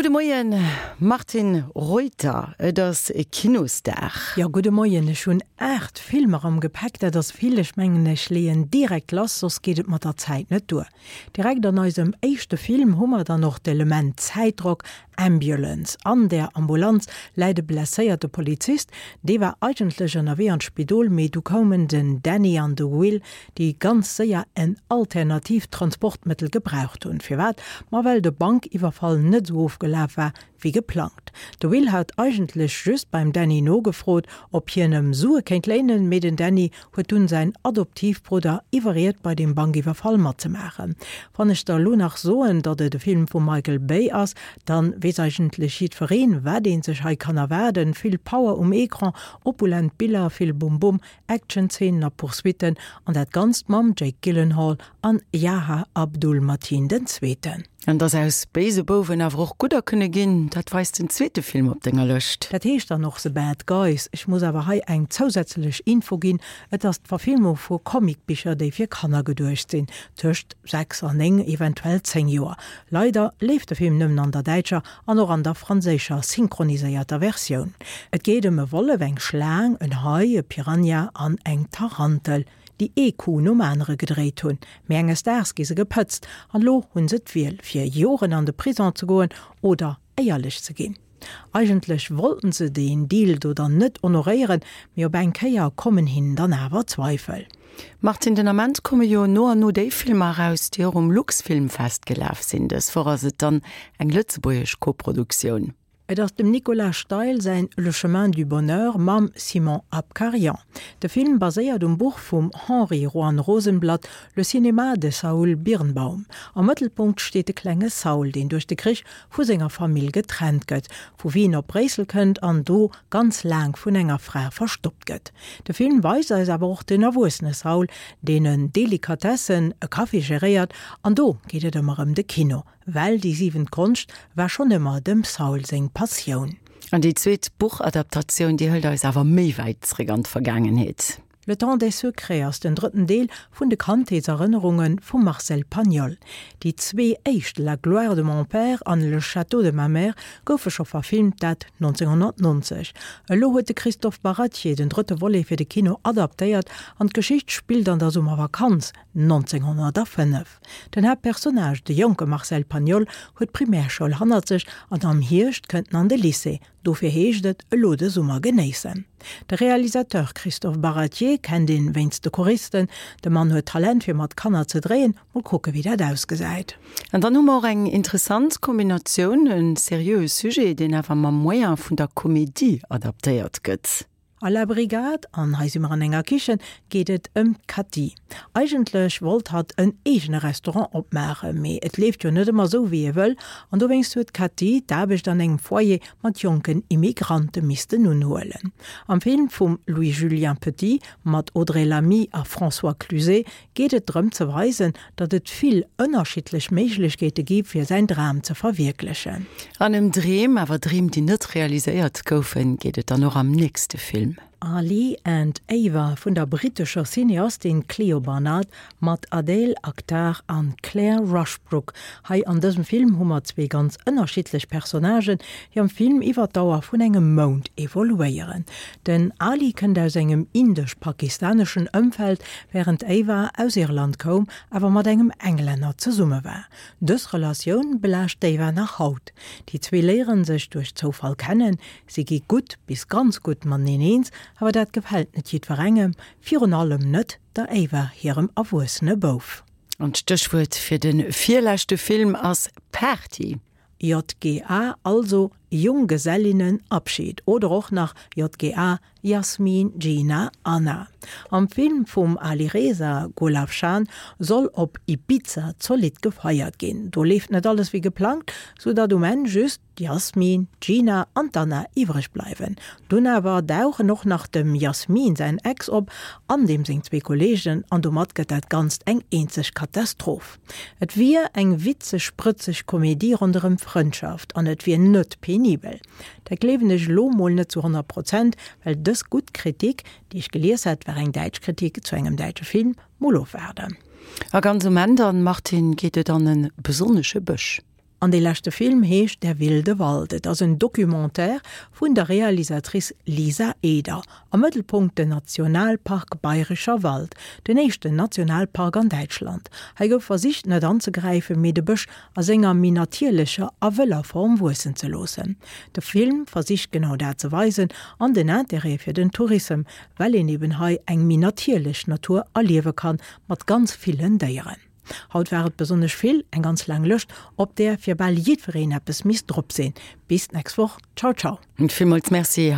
Gudde Moien Martine Reuter, et ass Kinosdag. Jo, gudde Moien. Ech hunn 8 Filmer am Gepäck, dat ass vill. Ech mengen ech leeën direkt lass, soss geet et mat der Zäit net duer. Direkt an eisem éischte Film hu mer dann och d'Element Zäitdrock, Ambulance. An där Ambulanz läit e blesséierte Polizist. Dee war eigentlech ënnerwee an d'Spidol, mee du koumen den Danny an de Will, déi ganz séier en alternatiivt Transportmëttel gebraucht hunn. Firwat? Ma well de Bankiwwerfall net esou ofgelaf war, wéi geplangt. De Will hat eigentlech just beim Danny nogefrot, ob hien em Sue kéint léinen, mee den Danny huet dunn säin Adoptivbrudder iwwerriet bei deem Bankiwwerfall matzemaachen. Wann ech der elo nach soen, datt et e Film vum Michael Bay ass, dann weess eigentlech jiddwereen, wat een sech hei kann erwaarden, vill Power um Ecran, opulent Biller, vill Bum Bum, Action-Zeenen a Poursuitten an dat Ganzt mam Jake Gyllenhaal an Yaha Abdul-Mateen den Zweeten. An dass aus béise Bouwen awer och gudder kënne ginn, dat weist den zweete Film op denger Lëscht. Dat heescht dann och The Bad Guys. Ech muss awer hei eng zousätzlech Info ginn, Et ass d'Verfilmung vu Comicbicher, déi fir Kanner geduecht sinn, tëscht 6 an 9, eventuell 10 Joer. Leider leeft de Film nëmmen an der däitscher an och an der franséischer synchroniséierter Versioun. Et geet ëm e Wollef, eng Schlaang, en Hai, e Piranha an eng Tarantel, déi ee Coup nom anere gedréit hunn. Mee enges Daags gi se gepëtzt an elo hunn se d'Wiel, fir Joren an de Prison ze goen oder éierlech ze ginn. Eigentlech wollten se deen Deal do dann net honoréieren, mee op eng Kéier kommen hinnen dann awer Zweifel. Martine, den Ament komme jo no an no déi Filmer eraus, déi och um Luxfilmfest gelaf sinn. Dës Woch ass et dann eng lëtzebuergesch Koproduktioun. Et ass dem Nicolas Steil säin Le chemin du bonheur mam Simon Abkarian. De Film baséiert um Buch vum Henri Juan Rosenblatt Le cinéma de Saul Birnbaum. Am Mëttelpunkt steet de klenge Saul, deen duerch de Krich vu senger Famill getrennt gëtt, vu Wien op Bréissel kënnt an do ganz laang vun enger Fra verstoppt gëtt. De Film weist eis awer och den erwuessene Saul, deen en Delikatessen, e Café geréiert an do geet et ëmmer ëm de Kino, well déi siwent Konscht war schonn ëmmer dem Saul seng Passioun. An déi zweet Buchadaptatioun, déi hëlt eis awer méi wäit zréck an d'Vergaangenheet. Le temps des secrets ass den drëtten Deel vun de Kandheetserënnerunge vum Marcel Pagnol. Déi zwee éischt, La gloire de mon père an Le château de ma mère, goufe scho verfilmt, dat 1990. Elo huet de Christophe Baratier den drëtte Volet fir de Kino adaptéiert an d'Geschicht spillt an der Summervakanz 1905. Den Haaptpersonnage, de jonke Marcel Pagnol, huet d'Primärschoul hannert sech an am Hierscht kënnt en an de Lycée. Dofir heescht et elo de Summer genéissen. De Realisateur Christophe Baratier kennt een wéinst de Choristen. De Mann huet Talent fir mat Kanner ze dréien, mol kucke wéi dat ausgesäit. An dann hu mer och eng interessant Kombinatioun, e seriöe Sujet, deen awer mam Moyen vun der Komedie adaptéiert gëtt. A La Brigade, an hei si mer an enger Kichen, geet et ëm d'Cathy. Eigentlech wollt hatt en eegene Restaurant opmaachen, mee et leeft jo net ëmmer esou wéi ee wëll, an dowéinst huet d'Cathy d'Aarbecht an engem Foyer mat jonken Immigrante missten unhuelen. Am Film vum Louis-Julien Petit mat Audrey Lamy a François Cluzet geet et drëm ze weisen, datt et vill ënnerschiddlech Méiglechkeete gi fir säin Dram ze verwierklechen. An ëm Dreem, awer Dreem déi net realiséiert goufen, geet et dann och am nächste Film. Ali and Ava vun der brittescher Cineastin Clio Barnard mat Adeel Akhtar an Claire Rushbrook. Hei an dësem Film hu mer zwee ganz ënnerschiddlech Personnagen, déi am Film iwwer d'Dauer vun engem Mount evoluéieren. Den Ali kënnt aus engem indesch-pakistaneschen Ëmfeld, wärend d'Ava aus Irland koum, awer mat engem Englänner zesumme war. Dës Relatioun belaascht d'Ava nach haut. Déi zwee léiere sech duerch Zoufall kennen, si gi gutt bis ganz gutt mateneen eens, awer dat gefält net jiddwerengem, virun allem net der Ava hirem erwuessene Bouf. An d'Stéchwuert fir de virleschte Film ass Party. JGA, also Junggesellinnenabschied oder och nach JGA, Jasmin, Gina, Anna. Am Film vum Alireza Golafshan soll op Ibiza zolidd gefeiert ginn. Do leeft net alles wéi geplangt, sou datt um Enn just d'Jasmin, d'Gina an d'Anna iwwreg bleiwen. Dunn awer dauchen och nach dem Jasmin säin Ex op an deem seng zwee Kolleegen an domat gëtt dat Ganzt eng eenzeg Katastroph. Et wier eng witzeg, sprëtzeg Komedie ronderëm Frëndschaft an et wier net penibel. Dat gleewen ech elo mol net zu 100 Prozent, well dës gutt Kritik, déi ech gelies hat, war eng däitsch Kritik zu engem däitsche Film. Mol ofwaarden. A ganz um Enn dann, Martine, geet et an e besonnesche Bësch. An dee leschte Film heescht Der wilde Wald. Et ass en Documentaire vun der Realisatrice Lisa Eder. Am Mëttelpunkt den Nationalpark Bayrischer Wald, den éischten Nationalpark an Däitschland. Hei gouf versicht net anzegräifen, mee de Bësch a senger méi natierlecher a wëller Form wuessen ze loossen. De Film versicht genau dat ze weisen an den Interêt fir den Tourissem, well een eben hei eng méi natierlech Natur erliewe kann, mat ganz villen Déieren. Haut war et besonnesch vill, eng ganz laang Lëscht, op där fir bal jiddwereen eppes misst drop sinn. Bis d'nächst Woch, ciao ciao. Villmools Merci.